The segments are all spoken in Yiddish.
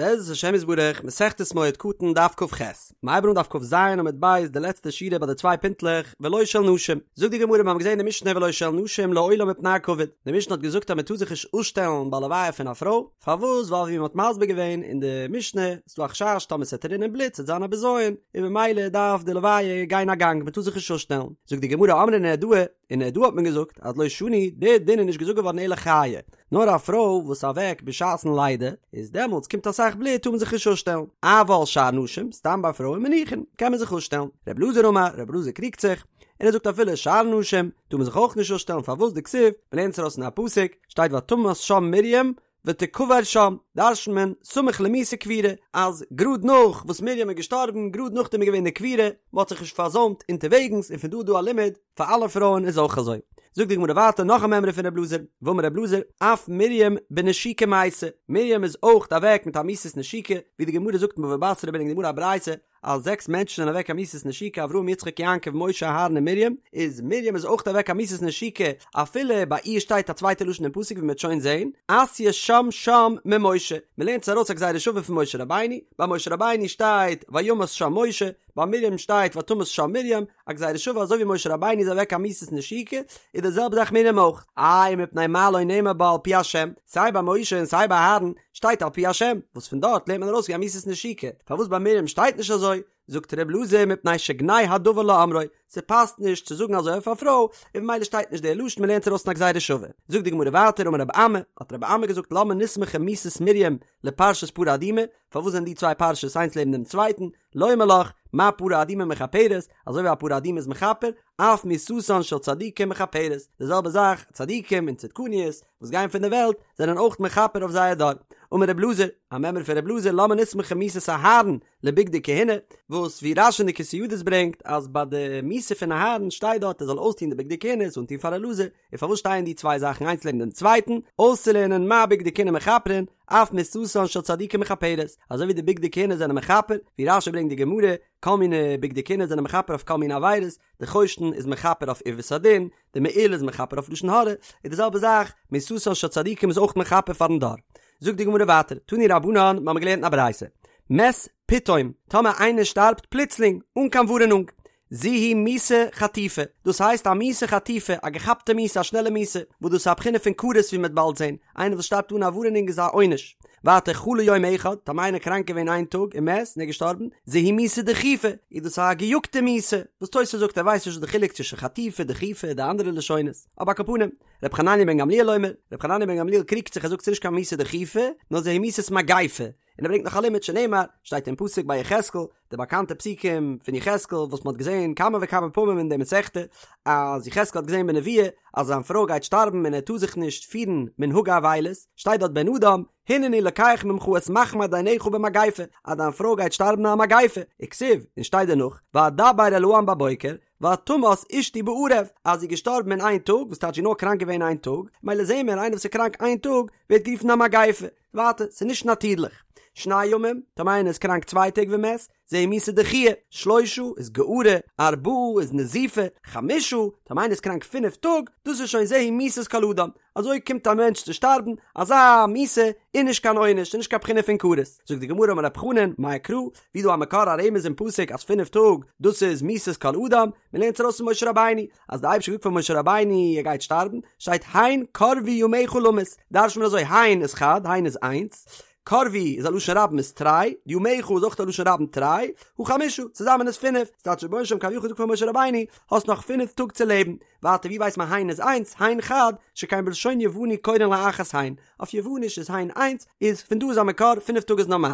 בעזרת השם יתברך, מסכת מועד קטן דף כ"ח, מ'הייבט אן דף כ"ז עמוד ב' די לעצטע שורה ביי די צוויי פינטלעך, ולא של נשים. זאגט די גמרא מיר האבן געזען אין די משנה ולא של נשים לעולם מפני הכבוד, די משנה האט געזאגט אז מען טאר זיך נישט אפשטעלן ביי לוויה פון א פרוי, פארוואס ווייל ווי מען האט מסביר געווען אין די משנה איז דא א חשש טאמער ס'עט רינען בלוט ס'עט זיין א בזיון, און ממילא דארף די לוויה גיין א גאנג מען טאר זיך נישט אפשטעלן, זאגט די גמרא אמרי נהרדעא, אין נהרדעא האט מען געזאגט אז לא שנו, די דין איז נישט געזאגט געווארן אלא חיה, נאר א פרוי וואס איז אוועק בשעת'ן לידה, איז דעמאלטס קומט אסאך בלוט טאר מען זיך נישט אפשטעלן, אבל שאר נשים, סתם ביי פרויען מניחין, קען מען זיך אפשטעלן. ר' אלעזר אמר, ר' אלעזר קריגט זיך, און ער זאגט אפילו שאר נשים, טאר מען זיך אויך נישט אפשטעלן פארוואס דכתיב, מ'לערנט עס ארויס אין א פסוק, שטייט ותמת שם מרים, ותקבר שם, דרש'נט מען, סמוך למיתה קבורה, אז גראד נאך וואס מרים איז געשטארבן, גראד נאכדעם איז געווען די קבורה, מען האט זיך נישט פארזוימט אונטערוועגנס, און פון דא איז דא א לימוד, פאר אלע פרויען איז אויך אזוי. זאגט די גמרא ווייטער נאך א מימרא פון ר' אלעזר, ואמר ר' אלעזר, אף מרים בנשיקה מתה, מרים איז אויך אוועק מיט א מיתת נשיקה, ווי די גמרא זאגט אין בבא בתרא ברענגט די גמרא א ברייתא, אז זעקס מענטשן זענען אוועק א מיתת נשיקה אברהם יצחק יעקב משה אהרן און מרים, איז מרים איז אויך אוועק א מיתת נשיקה אפילו ביי איר שטייט א צווייטע לשון אין פסוק ווי מ'וועט שוין זעהן, אתיא שם שם ממשה, מ'לערנט עס ארויס א גזירה שווה פון משה רבינו, ביי משה רבינו שטייט וימת שם משה, ביי מרים שטייט ותמת שם מרים, א גזירה שווה אזוי ווי משה רבינו איז אוועק א מיתת נשיקה, איז די זעלבע זאך מרים אויך. איי מפני מה לא נאמר בה על פי השם, סיי ביי משה און סיי ביי אהרן שטייט על פי השם, וואס פון דארט לערנט מען ארויס ווי א מיתת נשיקה, פארוואס ביי מרים שטייט נישט אזוי? זאגט ר' אלעזר מפני שגנאי הדבר לאומרו, ס'פאסט נישט צו זאגן אזוי אויף א פרוי, און ממילא שטייט נישט דער לשון מ'לערנט ארויס פון א גזירה שווה. זאגט די גמרא ווייטער אמר רבי אמי, האט רבי אמי געזאגט למה נסמכה מיתת מרים לפרשת פרה אדומה, פארוואס זענען די צוויי פרשות איינס לעבן דעם צווייטן, לומר לך, מה פרה אדומה מכפרת, אזוי ווי א פרה אדומה איז מכפר, אף מיתתן של צדיקים מכפרת, די זעלבע זאך, צדיקים און צדקניות וואס גייען פון די וועלט, זענען אויך מכפר אויף זייער דור. אמר רב אלעזר, א מימרא פון רב אלעזר, למה נסמכה מיתת אהרן לבגדי כהונה, וואס ווי רש"י אין די כתבי ידות ברענגט, אז ביי די מיתה פון אהרן שטייט דארט ער זאל אויסטון די בגדי כהונה, עס אנטון פאר אלעזר, און פארוואס שטייען די צוויי זאכן איינס לעבן דעם צווייטן? אויסצולערנען מה בגדי כהונה מכפרין, אף מיתתן של צדיקים מכפרת, אזוי ווי די בגדי כהונה זענען מכפר, ווי רש"י ברענגט די גמרא, כל מיני בגדי כהונה זענען מכפר אויף כל מיני עבירות, די חושן איז מכפר אויף עיוות הדין, די מעיל איז מכפר אויף לשון הרע, איז די זעלבע זאך, מיתתן של צדיקים איז אויך מכפר פארן דור. זאגט די גמרא ווייטער, תנו רבנן, מיר האבן געלערנט אין א ברייתא, מת פתאום, טאמער איינער שטארבט פלוצלינג, אן קיין ווארענונג, זו היא מיתה חטופה, דאס הייסט א מיתה חטופה, א געכאפטע מיתה, א שנעלע מיתה, וואס דאס איז א בחינה פון כרת ווי מ'וועט באלד זען, איינער וואס שטארבט אן א ווארענונג איז א עונש. ווייטער חלה יום אחד, טאמער איינער קראנק געווען איין טאג ומת און איז געשטארבן, זו היא מיתה דחופה, איז דאס א געיאגטע מיתה, וואס תוס' זאגט ער ווייסט נישט וואס די חילוק צווישן חטופה, דחופה, די אנדערע לשונות, אבער על כל פנים, ר' חנניה בן גמליאל אומר, ר' חנניה בן גמליאל קריגט זיך ער זאגט ס'איז נישט קיין מיתה דחופה, נאר זו היא מיתת מגיפה, און ער ברענגט נאך א לימוד שנאמר, שטייט אין פסוק ביי יחזקאל, די באקאנטע פסוקים פון יחזקאל וואס מען האט געזען כמה וכמה פעמים אין די מסכתא, אז יחזקאל האט געזען בנבואה אז זיין פרוי גייט שטארבן און ער טאר זיך נישט פירן מנהגי אבילות, שטייט דארט בן אדם, הנני לוקח ממך את מחמד עיניך במגיפה, אז דיין פרוי גייט שטארבן אין א מגיפה, וכתיב, און שטייט דערנאך, ואדבר אל העם בבוקר, ותמת אשתי בערב, אז זי איז געשטארבן אין איין טאג, וואס טייטש זי איז נאר קראנק געווען איין טאג, מילא זעהן מיר איינער וואס איז קראנק איין טאג ווערט גערופן א מגיפה, ווייטער, ס'איז נישט נאטירליך. שני ימים, טאמער איינער איז קראנק צוויי טעג ומת, זו היא מיתה דחויה, שלושה איז גערה, ארבעה איז נזיפה, חמשה, טאמער איינער איז קראנק פינף טאג, דאס איז שוין זו היא מיתת כל אדם, אזוי קומט א מענטש צו שטארבן, אזא מיתה איז נישט קיין עונש, ס'איז נישט קיין בחינה פון כרת. זאגט די גמרא אמר רב חנן, מאי קרא, ווי דא א מקור א רמז אין פסוק אז פינף טאג דאס איז מיתת כל אדם, מ'לערנט עס ארויס פון משה רבינו, אז די אייבערשטער האט געזאגט פאר משה רבינו ער גייט שטארבן, שטייט הן קרבו ימיך למות, דרש'נט מען אזוי הן איז חד, הן איז איינס, קרבו איז א לשון רבים איז תרי, ימיך איז אויך א לשון רבים תרי, הא חמשה, צוזאמען איז פינף, ס'טייטש רבונו של עולם כביכול זאגט פאר משה רבינו, האסט נאך פינף טאג צו לעבן, ווייטער ווי ווייסט מען הן איז איינס, הן חד, שכן בלשון יווני קורין לאחת הן, אויף יווניש איז הן איינס, איז פון דא איז א מקור פינף טאג איז נארמאל.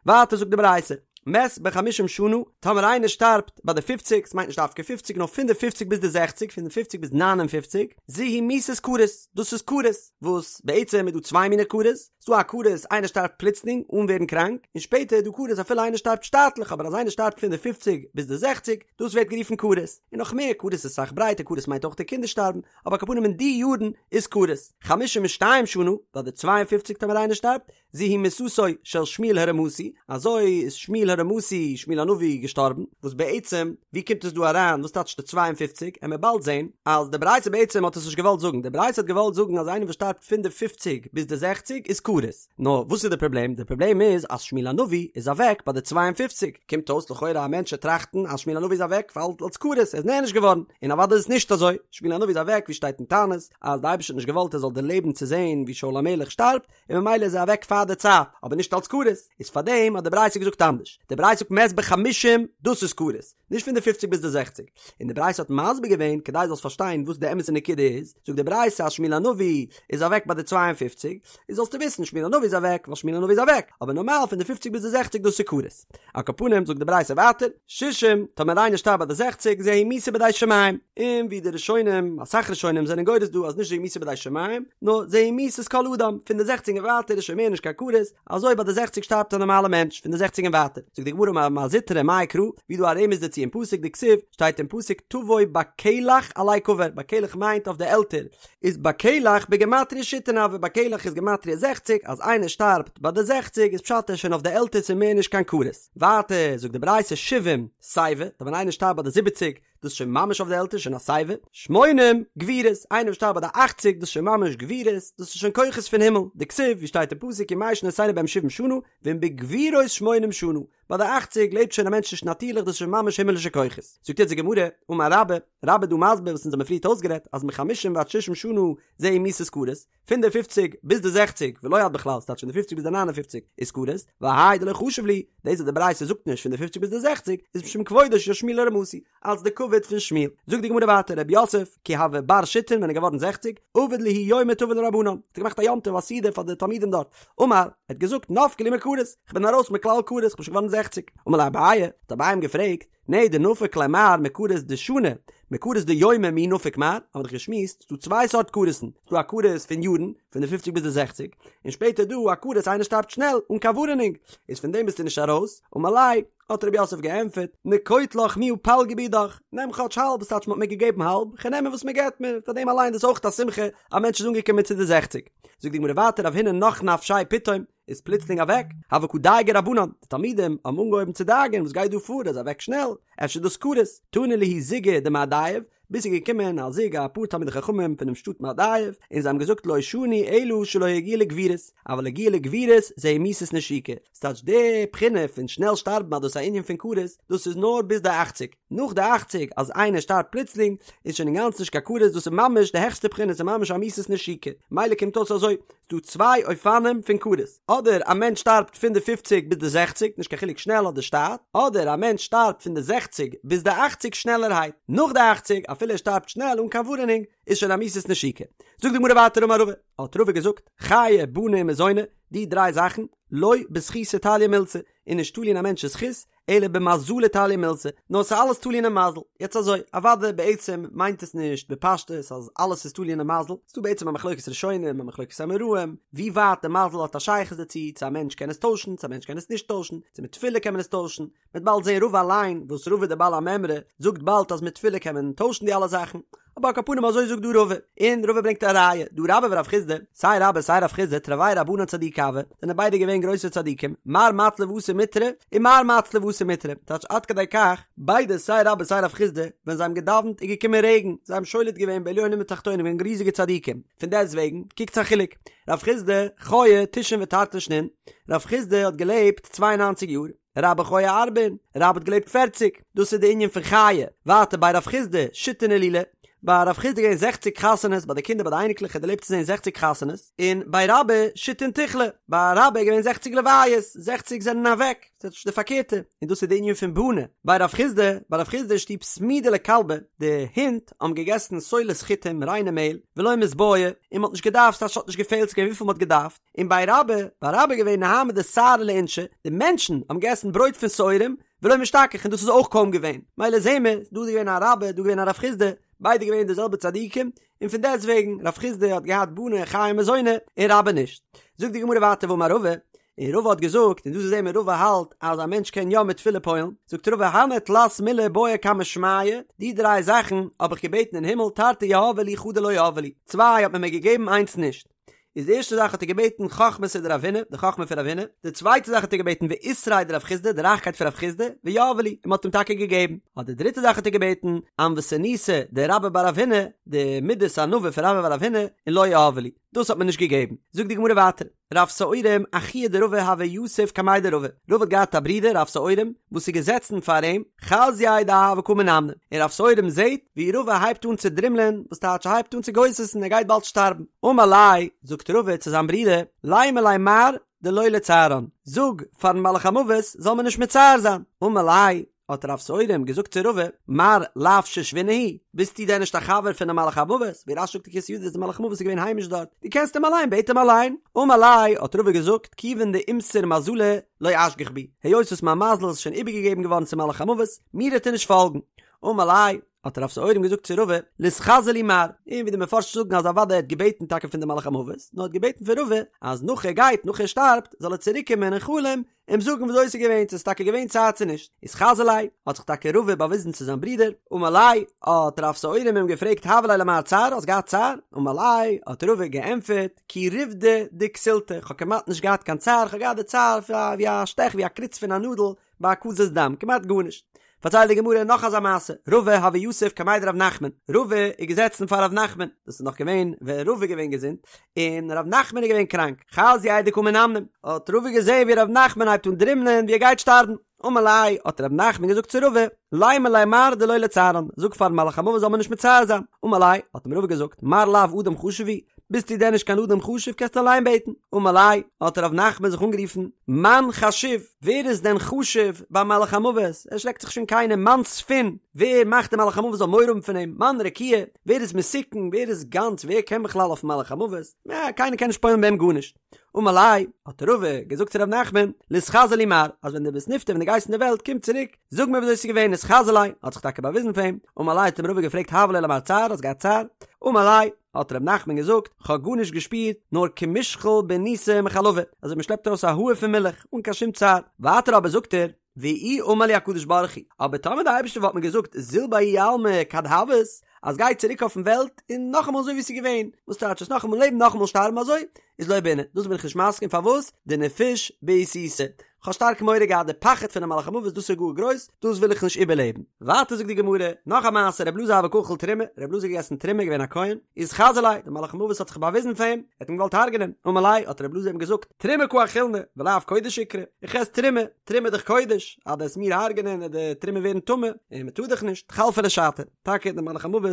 ווייטער זאגט די ברייתא, מת בחמישים שנה, טאמער איינער שטארבט ביי די פופציג, ס'מיינט נישט דווקא פופציג נאר פון די פופציג ביז די זעכציג, פון די פופציג ביז ניין און פופציג, זו היא מיתת כרת, דאס איז כרת, וואס בעצם איז דא צוויי מיני כרת, ס'דא א כרת איינער שטארבט פלוצלינג אן ווערן קראנק, און שפעטער איז דא כרת אפילו איינער שטארבט שטאטליך, אבער אז איינער שטארבט פון די פופציג ביז די זעכציג, דאס ווערט גערופן כרת, און נאך מער, כרת איז אסאך ברייטער, כרת מיינט אויך די קינדער שטארבן, אבער על כל פנים אין די יארן איז כרת. חמישים ושתיים שנה, ביי די צוויי און פופציג טאמער איינער שטארבט, זו היא מיתתו של שמואל הרמתי, אזוי איז שמואל הרמתי, שמואל הנביא, געשטארבן, וואס בעצם, ווי קומט עס דא אריין, וואס טייטש די 52, עמיר באלד זען, אז די ברייתא בעצם האט עס נישט געוואלט זאגן, די ברייתא האט געוואלט זאגן אז איינער וואס שטארבט פון די פופציג ביז די זעכציג איז כרת. כרת. נאר וואס איז די פראבלעם? די פראבלעם איז אז שמואל הנביא איז אוועק ביי די 52, קומט אויס לכאורה א מענטש וועט טראכטן אז שמואל הנביא איז אוועק ווייל אלס כרת, ער איז נענש געווארן, און אוודאי איז עס נישט אזוי, שמואל הנביא איז אוועק ווי שטייט אין תענית אז די אייבערשטער האט נישט געוואלט ער זאל דערלעבן צו זען ווי שאול המלך שטארבט, און ממילא איז ער אוועק פאר די צייט, אבער נישט אלס כרת, איז פארדעם האט די ברייתא געזאגט אנדערש, די ברייתא זאגט מת בחמישים דאס איז כרת, נישט פון די פופציג ביז די זעכציג, און די ברייתא האט מסביר געווען כדי זאלסט פארשטיין וואס די אמת'ע נקודה איז, זאגט די ברייתא אז שמואל הנביא איז אוועק ביי די 52, איז זאלסטו וויסן שמואל הנביא איז אוועק ווייל שמואל הנביא איז אוועק, אבער נארמאל פון די פופציג ביז די זעכציג דאס איז כרת. על כל פנים זאגט די ברייתא ווייטער, שישים, טאמער איינער שטארבט ביי די זעכציג, זו היא מיתה בידי שמים, און ווי די ראשונים, אסאך ראשונים זענען גורס דא אז נישט זו היא מיתה בידי שמים, נאר זו היא מיתת כל אדם, פון די זעכציג און ווייטער איז שוין מער נישט קיין כרת, אזוי ביי די זעכציג שטארבט א נארמאלע מענטש, פון די זעכציג און ווייטער. זאגט די גמרא אמר מר זוטרא מאי קרא, ווי דא א רמז דערצו אין פסוק דכתיב, שטייט אין פסוק תבוא בקלח עלי קבר, בקלח מיינט אויף די עלטער, איז בקלח בגימטריא שיתין הוי, בקלח איז גימטריא זעכציג, אז איינער שטארבט ביי די זעכציג איזפשט ער איז שוין אויף די עלטער ס'איז מער נישט קיין כרת. ווייטער זאגט די ברייתא שבעים שיבה, ווען איינער שטארבט ביי די זיבעציג, דאס איז שוין ממש אויף די עלטער, שוין א שיבה. שמונים גבורות, איינער וואס שטארבט ביי די אכציג, דאס איז שוין ממש גבורות, דאס איז שוין כוחות פון הימל, דכתיב, ווי שטייט אין פסוק ימי שנותינו בהם שבעים שנה, ואם בגבורות שמונים שנה, ביי די אכציג לעבט שוין א מענטש נישט נאטירליך, דאס איז שוין ממש הימלישע כוחות. זאגט יעצט די גמרא, אמר רבה, רבה איז דא מסביר וואס אונז האבן פריערט אויסגערעדט, אז מחמישים ועד שישים שנה זו היא מיתת כרת, פון די פופציג ביז די זעכציג, ולא עד בכלל, ס'טייטש פון די פופציג ביז די ניין און פופציג איז כרת, והאי דלא חשיב להו, דאס וואס די ברייתא זאגט נישט פון די פופציג ביז די זעכציג, איז משום כבודו של שמואל הרמתי, אלס די כבוד פון שמואל. זאגט די גמרא ווייטער רב יוסף, כי הוה בר שיתין ווען ער איז געווארן זעכציג, עבד להו יומא טבא לרבנן, האט ער געמאכט א יום טוב א סעודה פאר די תלמידים דארט, אמר, ער האט געזאגט נפקא לי מכרת, כ'בין ארויס מכלל כרת, כ'בין שוין געווארן זעכציג. אמר ליה אביי, האט אביי אים געפרעגט, נהי דנפק ליה מר מכרת דשני, מכרת דיומי מי נפיק מר, האבן מיר דאך געשמועסט, ס'דא צוויי סארט כרת'ן, ס'דא א כרת פון יארן, פון די פופציג ביז די זעכציג, און שפעטער דא א כרת איינער שטארבט שנעל, אן קיין ווארענונג, איז פון דעם ביסטו נישט ארויס, אמר ליה, האט רב יוסף געענטפערט, נקוט לך מיהא פלגא בידך, נעם כאטש האלב, ס'טייטש מ'האט מיר געגעבן האלב, כ'נעם וואס מ'געט מיר, פאר דעם אליין דאס אויך א שמחה, א מענטש איז אנגעקומען צו די זעכציג. זאגט די גמרא ווייטער רב הונא נח נפשיה פתאום, איז פלוצלינג אוועק, הוו קא דייגי רבנן, די תלמידים האבן אנגעהויבן צו דאגה'ן וואס גייט דא פאר, ער איז אוועק שנעל, אפשר דאס כרת, תנא להו זוגא דמהדייב, ביז ס'איז געקומען א זוג א פאר תלמידי חכמים פונעם שטאט מהדייב, און זיי האבן געזאגט לא שנו אלא שלא הגיע לגבורות, אבל הגיע לגבורות זו היא מיתת נשיקה, ס'טייטש די בחינה פון שנעל שטארבן אז דאס איז א ענין פון כרת, דאס איז נאר ביז די אכציג, נאך די אכציג אז איינער שטארבט פלוצלינג איז שוין אינגאנצן נישט קיין כרת, דאס איז ממש די העכסטע בחינה, ס'איז ממש א מיתת נשיקה, מילא קומט אויס אזוי, ס'דא צוויי אופנים פון כרת, אדער א מענטש שטארבט פון די פופציג ביז די זעכציג, נישט קיין חילוק שנעל אדער שטאט, אדער א מענטש שטארבט פון די זעכציג ביז די אכציג שנעלערהייט, נאך די אכציג, אפילו ער שטארבט שנעל אן קיין ווארענונג, איז שוין א מיתת נשיקה. זאגט די גמרא ווייטער אמר רבא, האט רבא געזאגט, חיי בני ומזוני, די דריי זאכן, לא בזכותא תליא מילתא, איז נישט תלוי אין א מענטש'ס זכות, אלא במזלא תליא מילתא, נאר ס'איז אלעס תלוי אינעם מזל. יעצט אזוי, אוודאי בעצם מיינט עס נישט בפשטות אז אלעס איז תלוי אינעם מזל, ס'דא בעצם א מחלוקת ראשונים, א מחלוקת אמוראים, ווי ווייט די מזל האט א שייכות דערצו, צו א מענטש קען עס טוישן, צו א מענטש קען עס נישט טוישן, צו מיט תפילה קען מען עס טוישן, מ'וועט באלד זען רבא אליין, וואס רבא דער בעל המימרא זאגט באלד אז מיט תפילה קען מען טוישן די אלע זאכן. אבער על כל פנים אזוי זאגט דא רבא, און רבא ברענגט א ראיה, דהא רבה ורב חסדא, סיי רבה סיי רב חסדא תרוייהו רבנן צדיקי הוו, זענען ביידע געווען גרויסע צדיקים, מר מצלי ואתי מיטרא, און מר מצלי ואתי מיטרא, טייטש עד כדי כך, ביידע סיי רבה סיי רב חסדא, ווען זיי האבן געדאווענט איז געקומען רעגן, זיי האבן שולט געווען בעליונים ותחתונים געווען ריזיגע צדיקים, פון דעסט וועגן, קוקטס א חילוק, רב חסדא חיי תשעין ותרתין שנין, רב חסדא האט געלעבט צוויי און ניינציג יאר, רבה חיי ארבעין, רבה האט געלעבט פערציג, דאס איז די ענין פון חיי, ווייטער בי רב חסדא, שיתין הילולי, ביי רב חסדא געווען זעכציג חתונות ביי די קינדער ביי די אייניקלעך האט דערלעבט צו זען זעכציג חתונות, און בי רבה שיתין תיכלי, ביי רבה איז געווען זעכציג לוויות, זעכציג זענען אוועק, ס'איז די פארקערטע, און דאס איז די ענין פון בני, בי רב חסדא, ביי רב חסדא אין שטוב סמידא לכלבי, די הינט האבן געגעסן סולת חיטים, ריינע מעהל, ולא מיתבעי, און מ'האט נישט געדארפט, ס'הייסט ס'האט נישט געפעלט, ס'איז געווען וויפיל מ'האט געדארפט. און בי רבה, ביי רבה איז געווען נהמא דשערי לאינשי, די מענטשן האבן געגעסן ברויט פון שעורים, ולא משתכח און דאס איז אויך קוים געווען, מילא זעהן מיר, דא איז געווען א רבה, דא געווען א רב חסדא, ביידע געווען די זעלבע צדיקים, און פון דעסט וועגן, רב חסדא האט געהאט בני חיי ומזוני, און רבה נישט. זאגט די גמרא ווייטער ואמר רבא, און רבא האט געזאגט, און דא זעהן מיר רבא האלט אז א מענטש קען יא מיט תפילה פועל'ן, זאגט רבא הני תלת מילי בעאי קמי שמיא, די דריי זאכן האב איך געבעטן אין הימל תרתי יהבו לי חדא לא יהבו לי, צוויי האט מען מיר געגעבן איינס נישט. איז די ערשטע זאך האט ער געבעטן חכמתא דרב הונא, די חכמה פון רב הונא, די צווייטע זאך האט ער געבעטן ועותריה דרב חסדא, די רייכקייט פון רב חסדא, ויהבו לי, און מען האט אים טאקע געגעבן. אט די דריטע זאך האט ער געבעטן ענוותנותא דרבה בר רב הונא, די מידת ענווה פון רבה בר רב הונא, און לא יהבו לי, דאס האט מען נישט געגעבן. זאגט די גמרא ווייטער. רב שעורים אחוה דרבא הוה יתיב קמיה דרבא, רבא האט געהאט א ברודער רב שעורים וואס איז געזעצן פאר אים, חזייה דהוה קא מנמנם, און רב שעורים זעט ווי רבא הייבט אן צו דרימלען, וואס טייטש ער הייבט אן צו גוסס'ן ער גייט באלד שטארבן, אמר ליה, זאגט רבא צו זיין ברודער, לימא ליה מר דלא לצערן, זאג פארן מלאך המוות זאל מיר נישט מצער זיין, אמר ליה, האט רב שעורים געזאגט צו רבא, מר לאו שושבינא הוא, ביסטו דען נישט א חבר פונעם מלאך המוות, ווי רש"י זאגט אין כתבי ידות אז דער מלאך המוות איז געווען היימיש דארט, דו קענסט אים אליין, בעט אים אליין. אמר ליה, האט רבא געזאגט, כיוון דאימסר מזלא לא אשגח בי, היות וואס מיין מזל איז שוין איבערגעגעבן געווארן צום מלאך המוות, מיר וועט ער נישט פאלגן. אמר ליה, האט רב שעורים געזאגט צו רבא, ליתחזי לי מר, און ווי די מפרשים זאגן אז אוודאי ער האט געבעטן טאקע פון די מלאך המוות, נאר ער האט געבעטן פון רבא אז נאך ער גייט, נאך ער שטארבט, זאל ער צוריק קומען אין חלום אים זאגן וויאזוי עס איז געווען, צו עס איז טאקע געווען צער צו נישט. אתחזי ליה, האט זיך טאקע רבא באוויזן צו זיין ברודער, אמר ליה, האט רב שעורים אים געפרעגט הוה ליה למר צער, האסט געהאט צער? אמר ליה, האט רבא געענטפערט, כי ריבדא דכסילתא, איך האב כמעט נישט געהאט קיין צער, איך האב געהאט די צער ווי א שטעך, ווי א קריץ פון א נאדל ביי הקזת דם, כמעט גארנישט. פארציילט די גמרא נאך אזא מעשה, רבא הוה יתיב קמיה דרב נחמן, רבא איז געזעצן פאר רב נחמן, דאס איז נאך געווען ווען רבא איז געווען געזונט, און רב נחמן איז געווען קראנק, חזייה דקא מנמנם, האט רבא געזען ווי רב נחמן הייבט אן דרימלען ווי ער גייט שטארבן, אמר ליה, האט רב נחמן געזאגט צו רבא, לימא ליה מר דלא לצערן, זאג פארן מלאך המוות זאל מיר נישט מצער זיין, אמר ליה, האט אים רבא געזאגט, מר לאו אדם חשוב הוא, ביסטו דען נישט קיין אדם חשוב קענסטו אליין בעטן, אמר ליה, האט רב נחמן זיך אנגערופן, מאן חשיב, ווער איז דען חשוב ביים מלאך המוות, ער שרעקט זיך שוין קיינעם, מאן ספין, ווער מאכט דער מלאך המוות זאל מורא האבן פון אים, מאן רקיע, ווער איז מתוקן, ווער איז גאנץ, ווער קען בכלל אויפן מלאך המוות, נע, קיינער קען נישט פועל'ן ביי אים גארנישט. אמר ליה, האט רבא געזאגט צו ר' נחמן, ליתחזי לי מר, אז ווען דו ביסט נפטר ווען דו גייסט אין די וועלט קום צוריק, זאג מיר וויאזוי ס'איז געווען, אתחזי ליה, האט זיך טאקע באוויזן פאר אים, אמר ליה האט אים רבא געפרעגט הוה ליה למר צער, האסט געהאט צער? אמר ליה, האט ר' נחמן געזאגט, כ'האב גארנישט געשפירט, נאר כמושחל בניסא מחלבא, אזוי מ'שלעפט ארויס א האר פון מילך, אן קיין שום צער. ווייטער אבער זאגט ער, ואי אמר לי הקדוש ברוך הוא, אבער טאמער די אייבערשטער וואלט מיר געזאגט זיל בההוא עלמא כד הוית, אז גיי צוריק אויפן וועלט און נאכאמאל אזוי ווי עס איז געווען, וואס טייטש עס נאכאמאל לעבן נאכאמאל שטארבן אזוי, איז לא בעינא, דאס בין איך נישט מסכים פארוואס, דנפיש בעיתותא, כ'האב שטארק מורא געהאט די פחד פונעם מלאך המוות דאס איז גאר גרויס, דאס וויל איך נישט איבערלעבן. ווייטער זאגט די גמרא, נאך א מעשה ר' אלעזר הוה קא אכיל תרומה, ר' אלעזר האט געגעסן תרומה געווען א כהן, אתחזי ליה, דער מלאך המוות האט זיך באוויזן פאר אים, ער האט אים געוואלט הרג'נען, אמר ליה, האט ר' אלעזר אים געזאגט, תרומה קא אכילנא, ולאו קודש איקרי, איך עס תרומה, תרומה איז דאך קודש, אז דו וועסט מיר הרג'נען וועט די תרומה ווערן טמא, און מען טאר דאך נישט, חלפא ליה שעתא, טאקע דער מלאך המוות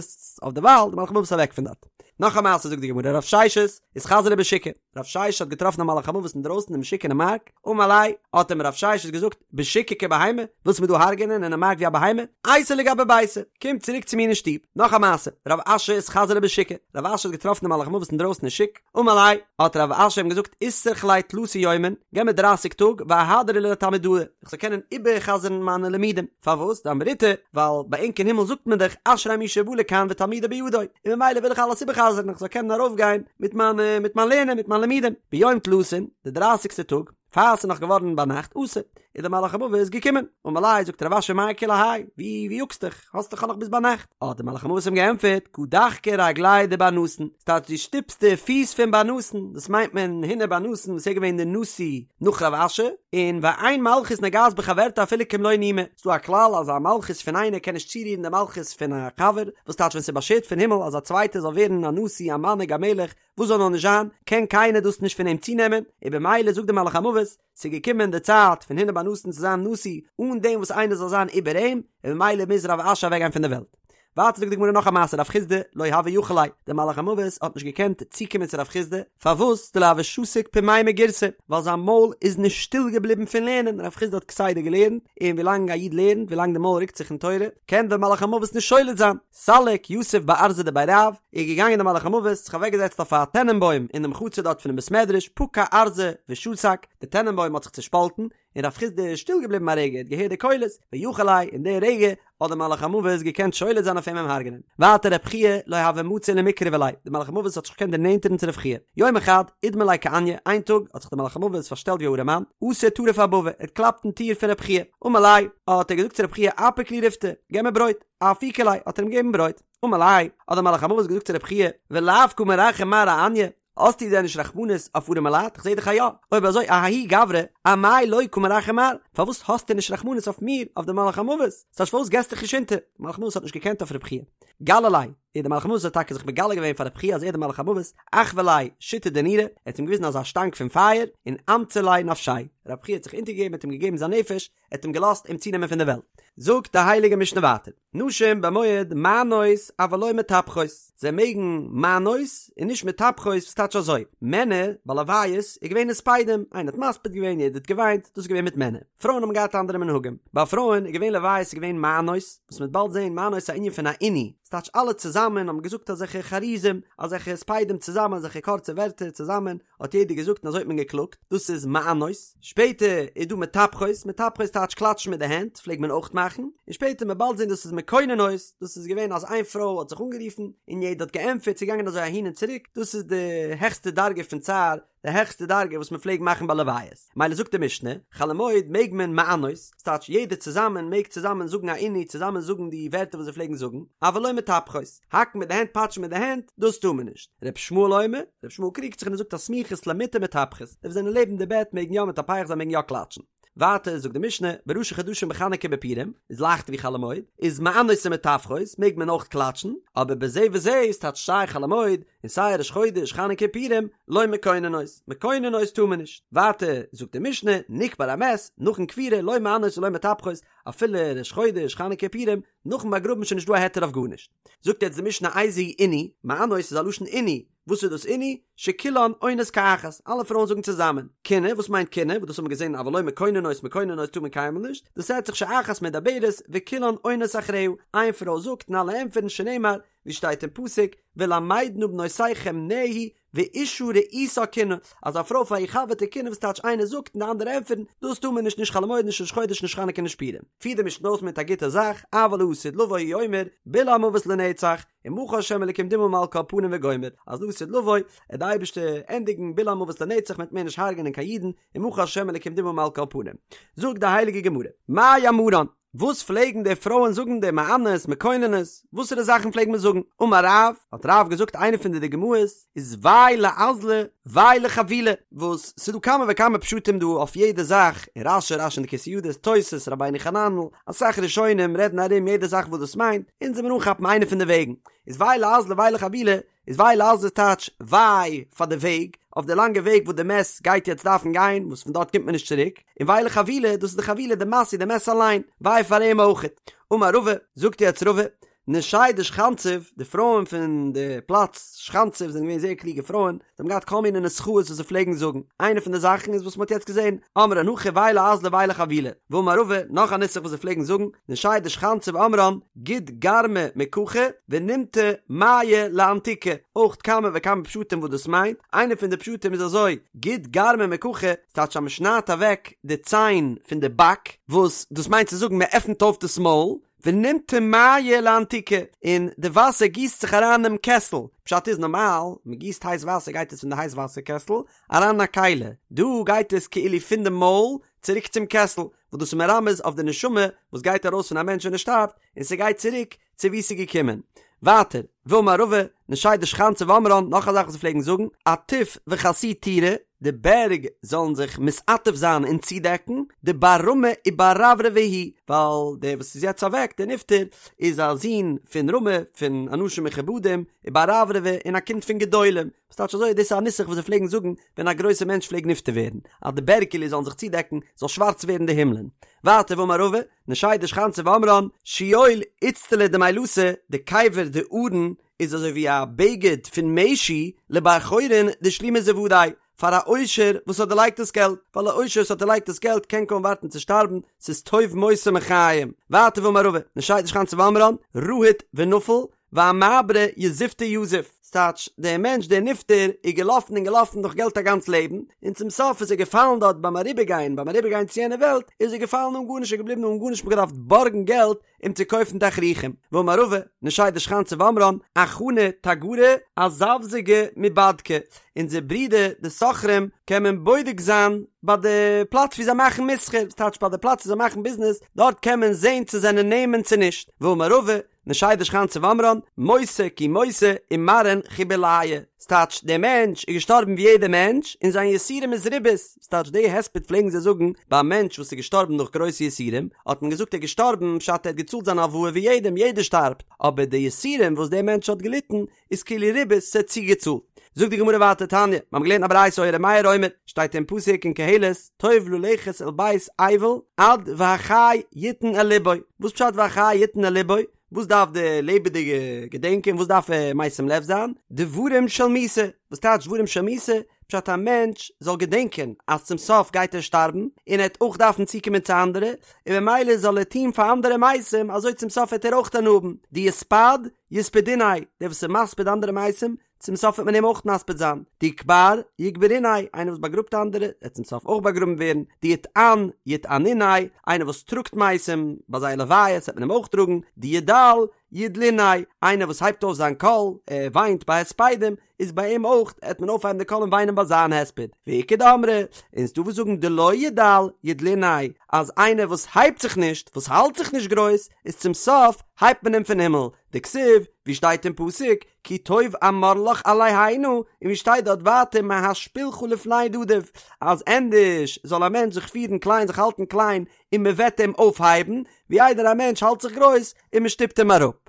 אויף דערווייל, דער מלאך המוות איז אוועק פון דארט. נאך א מעשה זאגט די גמרא, רב ששת, אתחזי ליה בשוקא, רב ששת האט געטראפן א מלאך המוות אינדרויסן אין שוק אינעם מארק, אמר ליה, האט אים רב ששת געזאגט, בשוקא כבהמה, ווילסט מיר דא הרג'נען אינעם מארק ווי א בהמה? אייתי לגבי ביתא, קום צוריק צו מיר אין שטוב. נאך א מעשה, רב אשי אתחזי ליה בשוקא, רב אשי האט געטראפן דעם מלאך המוות אינדרויסן אין שוק, אמר ליה, האט רב אשי אים געזאגט, איתרך לי תלתא יומין, געב מיר דרייסיג טאג, ואהדרי לתלמודאי, איך זאל קענען איבער'חזר'ן מיינע לימודים. פארוואס? דאמריתו, ווייל ביי ענק אין הימל זאגט מען דאך אשרי מי שבא לכאן ותלמודו בידו, און ממילא וויל איך אלעס איבער'חזר'ן איך זאל קענען ארויפגיין מיט מיין מיט מיין לערנען מיט מיין לימודים. ביום תלתין, די דרייסיגסטע טאג, פאר ס'איז נאך געווארן ביינאכט, אתא, איז דער מלאך המוות געקומען. אמר ליה, זאגט רב אשי מאי כולי האי, ווי ווי יאגסט דיך, האסט דאך נאך ביז ביינאכט. האט דער מלאך המוות אים געענטפערט, קא דחקי רגליה דבר נתין, ס'טייטש דו שטופסט די פיס פון בר נתן, דאס מיינט מען הונא בר נתן וואס איז געווען דער נשיא נאך רב אשי, און ואין מלכות נוגעת בחברתה אפילו כמלא נימא, ס'דא א כלל אז א מלכות פון איינער קען נישט צורירן די מלכות פון א חבר, וואס טייטש ווען ס'איז באשערט פון הימל אז א צווייטער זאל ווערן א נשיא א מנהיג א מלך, וואס זאל נאר נישט זיין, קען קיינער דאס נישט פון אים צונעמען, און במילא זאגט דער מלאך המוות, ס'איז געקומען די צייט פון הונא בר נתן צו זיין נשיא אן דעם וואס איינער זאל זיין איבער אים, און ממילא מוז רב אשי אוועקגיין פון דער וועלט. ווייטער זאגט די גמרא נאך א מעשה רב חסדא לא הוה יכיל ליה, דער מלאך המוות האט נישט געקענט צוקומען צו רב חסדא, פארוואס? דלא הוה שתיק פומיה מגירסא, ווייל זיין מויל איז נישט שטיל געבליבן פון לערנען, רב חסדא האט כסדר געלערנט, און ווילאנג א איד לערנט, ווילאנג די מויל רוקט זיך אין תורה, קען דער מלאך המוות נישט שולט זיין. סליק יתיב בארזא דבי רב, איז געגאנגען דער מלאך המוות, זיך אוועקגעזעצט אויף א טענענבוים אינעם חצר דארט פונעם בית מדרש, פקע ארזא ושתק, די טענענבוים האט זיך צושפאלטן, און רב חסדא איז שטיל געבליבן א רגע, ער האט געהערט די קולות, ויכיל ליה, אין די רגע האט דער מלאך המוות געקענט שולט זיין אויף אים אים הרג'נען. ווייטער רב חייא לא הוה מצי למקרבא ליה, דער מלאך המוות האט זיך נישט געקענט דערנענטערן צו רב חייא. יומא חד, אידמי ליה כעניא, איין טאג האט זיך דער מלאך המוות פארשטעלט ווי א ארעמאן, אתא טריף אבבא, ער האט געקלאפט אין טיר פון רב חייא, אמר ליה, האט ער געזאגט צו רב חייא אפיק לי ריפתא, געב מיר ברויט. אפיקו ליה, האט ער אים געגעבן ברויט. אמר ליה, האט דער מלאך המוות געזאגט צו רב חייא, ולאו קא מרחם מר אעניא, האסטו דען נישט רחמנות אויף ארעמע לייט? איך זע דאך אז יא. אויב אזוי אההוא גברא, אמאי לא קא מרחם מר, פארוואס האסטו נישט רחמנות אויף מיר, אויף דעם מלאך המוות? ס'טייטש פארוואס געסטו דיך נישט אונטער? דער מלאך המוות האט נישט געקענט אויף רב חייא. גלי ליה. און דער מלאך המוות האט טאקע זיך מגלה געווען פאר רבי חייא אז ער איז דער מלאך המוות, אחוי ליה שיתא דנורא, ער האט אים געוויזן אזא שטאנג פון פייער, און אמצי ליה נפשיה, רבי חייא האט זיך אונטערגעגעבן האט אים געגעבן זיין נפש, ער האט אים געלאזט אים צונעמען פון די וועלט. זאגט די הייליגע משנה ווייטער, נשים במועד מענות אבל לא מטפחות, זיי מעגן מענות און נישט מטפחות, וואס טייטש אזוי, מענער ביי לוויות איז געווען הספדים, איינער האט מספיד געווען יעדער האט געוויינט, דאס איז געווען מיט מענער, פרויען האבן געהאט אנדערע מנהגים, ביי פרויען איז געווען לוויות איז געווען מענות, וואס מ'וועט באלד זען מענות איז א ענין פון א עינוי, ס'טייטש אלע צוזאמען האבן געזאגט אזעלכע חרוזים, אזעלכע הספדים צוזאמען, אזעלכע קורצע ווערטער צוזאמען, האט יעדער געזאגט און אזוי האט מען געקלאגט, דאס איז מענות, שפעטער איז דא מטפחות, מטפחות טייטש קלאטשן מיט די הענט, פלעגט מען אויך מאכן, און שפעטער מ'וועט באלד זען דאס איז מקוננות, דאס איז געווען אז איין פרוי האט זיך אנגערופן און יעדער האט געענטפערט, ס'איז געגאנגען אזוי אהין און צוריק, דאס איז די העכסטע דרגה פון צער, די העכסטע דרגה וואס מען פלעג מאכן ביי לוויות, מילא זאגט די משנה, חול המועד מעג מען מענות, ס'טייטש יעדער צוזאמען מעג צוזאמען זאגן א עינוי, צוזאמען זאגן די ווערטער וואס זיי פלעגן זאגן, אבל לא מטפחות, האקן מיט די הענט פאטשן מיט די הענט, דאס טאר מען נישט. ר' ישמעאל אומר, ר' ישמעאל קריגט זיך און ער זאגט הסמוכות למיטה מטפחות, די וואס זענען לעבן די בעט מעגן יא מטפח זיין מעגן יא קלאטשן. ווייטער זאגט די משנה, בראשי חדשים בחנוכה בפורים, איז לייכטער ווי חול המועד, איז מענות ומטפחות, מעג מען אויך קלאטשן, אבער בזה וזה איז טייטש סיי חול המועד, און סיי ראש חודש חנוכה פורים, לא מקוננות, מקוננות טאר מען נישט. ווייטער זאגט די משנה, נקבר המת, נאכן קבירה, לא מענות ולא מטפחות, אפילו ראש חודש חנוכה פורים, נאכן באגראבן איז שוין נישט דא א היתר אויף גארנישט. זאגט יעצט די משנה איזהו עינוי, מענות איז א לשון עינוי, וואס איז דאס עינוי? שכולן עונות כאחת, אלע פרויען זאגן צוזאמען. קינה, וואס מיינט קינה? וואס דאס האבן מיר געזען אבל לא מקוננות, מקוננות טאר מען קיינמאל נישט, דאס רעדט זיך שאחת מדברת וכולן עונות אחריה, איין פרוי זאגט און אלע ענטפערן שנאמר, ווי שטייט אין פסוק, ולמדה נא בנותיכם נהי ואשה רעותה קינה, אז א פרוי פאר איר חבר'טע קינה וואס טייטש איינער זאגט און די אנדערע ענטפערן, דאס טאר מען נישט נישט חול המועד נישט ראש חודש נישט חנוכה נישט פורים. פירט די משנה אויס מיט א גוטע זאך, אבל לעתיד לבוא הוא אומר, בלע המוות לנצח, ומחה השם אלקים דמעה מעל כל פנים וגומר, אז לעתיד לבוא וועט די אייבערשטער ענדיגן בלע המוות לנצח מען וועט מער נישט הרג'נען קיין אידן, ומחה השם אלקים דמעה מעל כל פנים. זאגט די הייליגע גמרא, מאי אמרן? וואס פלעגן די פרויען זאגן די מענות מקוננות? וואסערע זאכן פלעג מען זאגן? אמר רב, האט רב געזאגט איינע פון די דוגמאות איז וויי לאזלא וויי לחבילה, וואס ס'איז דא כמה וכמה פשטים דא אויף יעדע זאך, אין רש"י, רש"י אין די כתבי ידות, תוס', רבינו חננאל, אסאך ראשונים רעדן ארום יעדע זאך וואס דאס מיינט, אונז וועלן מיר אנכאפן איינע פון די וועגן, איז וויי לאזלא וויי לחבילה, איז וויי לאזלא טייטש וויי פאר די וועג, אויף די לאנגע וועג וואס די מת גייט יעצט דארפן גיין, וואס פון דארט קומט מען נישט צוריק, און וויי לחבילה, דאס איז די חבילה, די משא, די מת אליין, וויי פאר אים אויכעט. אמר רבא, זאגט יעצט רבא, נשי דשכנציב, די פרויען פון די פלאץ שכנציב זענען געווען זייער קלוגע פרויען, זיי האבן געהאט כל מיני נוסחאות וואס זיי פלעגן זאגן, איינע פון די זאכן איז וואס מען האט יעצט געזען, אמרן הכי וויי לאזלא וויי לחבילה, ואמר רבא, נאך א נוסח וואס זיי פלעגן זאגן, נשי דשכנציב אמרן, גוד גרמא מקחי ונימטי מיא לאנתוקי, אויך כמה וכמה פשטים וואס דאס מיינט, איינע פון די פשטים איז אזוי, גוד גרמא מקחי, ס'טייטש אז מען שניידט אוועק די ציין פון די באק, וואס דאס מיינט צו זאגן מען עפנט אויף דאס מויל, ונימטי מיא לאנתוקי, און די וואסער גיסט זיך אריין אינעם קעסל, פשט איז נארמאל, מען גיסט הייס וואסער גייט עס פון די הייס וואסער קעסל אריין אין א כלי, דא גייט עס כאילו פון די מויל צוריק צום קעסל, וואס דאס איז מרמז אויף די נשמה וואס גייט ארויס פון א מענטש ווען ער שטארבט, און ס'גייט צוריק צו וואו ס'איז געקומען. ווייטער, ואמר רבא, נשי דשכנציב אמרן, נאך א זאך וואס זיי פלעגן זאגן, עטיף וכסי טורי, די בערג זאלן זיך מתעטף זיין און צודעקן, דבר רמי ובר רברבי הוא, ווייל דער וואס איז יעצט אוועק, דער נפטר, איז א זון פון רמי, פון אנשים מכובדים, ובר רברבי, און א קינד פון גדולים. וואס טייטש אזוי, דאס איז א נוסח וואס זיי פלעגן זאגן ווען א גרויסער מענטש פלעגט נפטר ווערן, אז די בערג כאילו זאלן זיך צודעקן, זאל שווארץ ווערן די הימלען. ווייטער ואמר רבא, נשי דשכנציב אמרן, שאול איצטלא דמילתא, די קבר די ארון איז אזוי ווי א בגד פון משי לבר חורין דשלימא זוודיה, פאר א עושר וואס האט דערלייגט דאס געלט, ווייל א עושר וואס האט דערלייגט דאס געלט קען קוים ווארטן צו שטארבן, ס'איז טוב מותו מחיים. ווייטער ואמר רבא, נשי דשכנציב אמרן, רהיט ונפיל, ואמעברא יזופתא יזיף, ס'טייטש, דער מענטש דער נפטר איז געלאפן און געלאפן נאך געלט א גאנץ לעבן, און צום סוף איז ער געפאלן דארט ביים אריבערגיין, ביים אריבערגיין צו יענע וועלט, איז ער געפאלן אן גארנישט, ער איז געבליבן אן גארנישט, מ'האט געדארפט בארגן געלט אים צו קויפן תכריכים. ואמר רבא, נשי דשכנציב אמרן, אחנא תגרי אזבזגי מיבדקי, אונזער ברידער די סוחרים קען מען בודק זיין ביי די פלאץ ווי זיי מאכן מסחר, ס'טייטש ביי די פלאץ ווי זיי מאכן ביזנעס, דארט קען מען זען צו זענען נאמן צו נישט. ואמר רבא, נשי דשכנתא ואמרן, מותא כי מותא ומרעין חיבוליא. ס'טייטש, דער מענטש איז געשטארבן ווי יעדער מענטש, און זיין יסורים איז ריבית. ס'טייטש, די הספד פלעגן זיי זאגן ביי א מענטש וואס איז געשטארבן נאך גרויסע יסורים, האט מען געזאגט ער איז געשטארבן, פשט ער האט געצאלט זיין הלוואה ווי יעדעם, יעדער שטארבט, אבער די יסורים וואס דער מענטש האט געליטן, איז כאילו ריבית, ס'האט צוגעצאלט. זאגט די גמרא ווייטער תניא, מיר האבן געלערנט א ברייתא היה ר' מאיר אומר, שטייט אין פסוק אין קהלת, טוב ללכת אל בית אבל עד והחי יתן אל לבו, וואס פשט והחי יתן אל לבו? וואס דארף די לעבעדיגע געדענקען? וואס דארף ער משים לב זיין? דברים של מיתה, וואס טייטש דברים של מיתה? פשט א מענטש זאל געדענקען אז צום סוף גייט ער שטארבן, און ער וועט אויך דארפן צוקומען צו אנדערע, און ממילא זאל ער טון פאר אנדערע מתים, אזוי צום סוף וועט ער אויך הנאה האבן, דיספד יספדוניה, דער וואס איז מספיד אנדערע מתים, צום סוף וועט מען אים אויך מספיד זיין, דיקבר יקברוניה, איינער וואס באגראבט אנדערע, וועט צום סוף אויך באגראבן ווערן, דיטען יטענוניה, איינער וואס טראגט מתים ביי זייער לוויות וועט מען אים אויך טראגן, דידל ידלוניה, איינער וואס הייבט אויף זיין קול, ער וויינט ביי הספדים, איז ביי אים אויך וועט מען אויפהייבן די קול און וויינען ביי זיין הספד, ואיכא דאמרי, און ס'דא וואס זאגן דלא ידל ידלוניה, אז איינער וואס הייבט זיך נישט, וואס האלט זיך נישט גרויס, איז צום סוף הייבט מען אים פון הימל, דכתיב, ווי שטייט אין פסוק, כי טוב אמר לך עלה הנה, און ווי שטייט דארט ווייטער מהשפילך לפני נדיב, אז ענדערש זאל א מענטש זיך פירן קליין, זיך האלטן קליין, און מען וועט אים אויפהייבן, ווי איידער א מענטש האלט זיך גרויס און מען שטופט אים אראפ.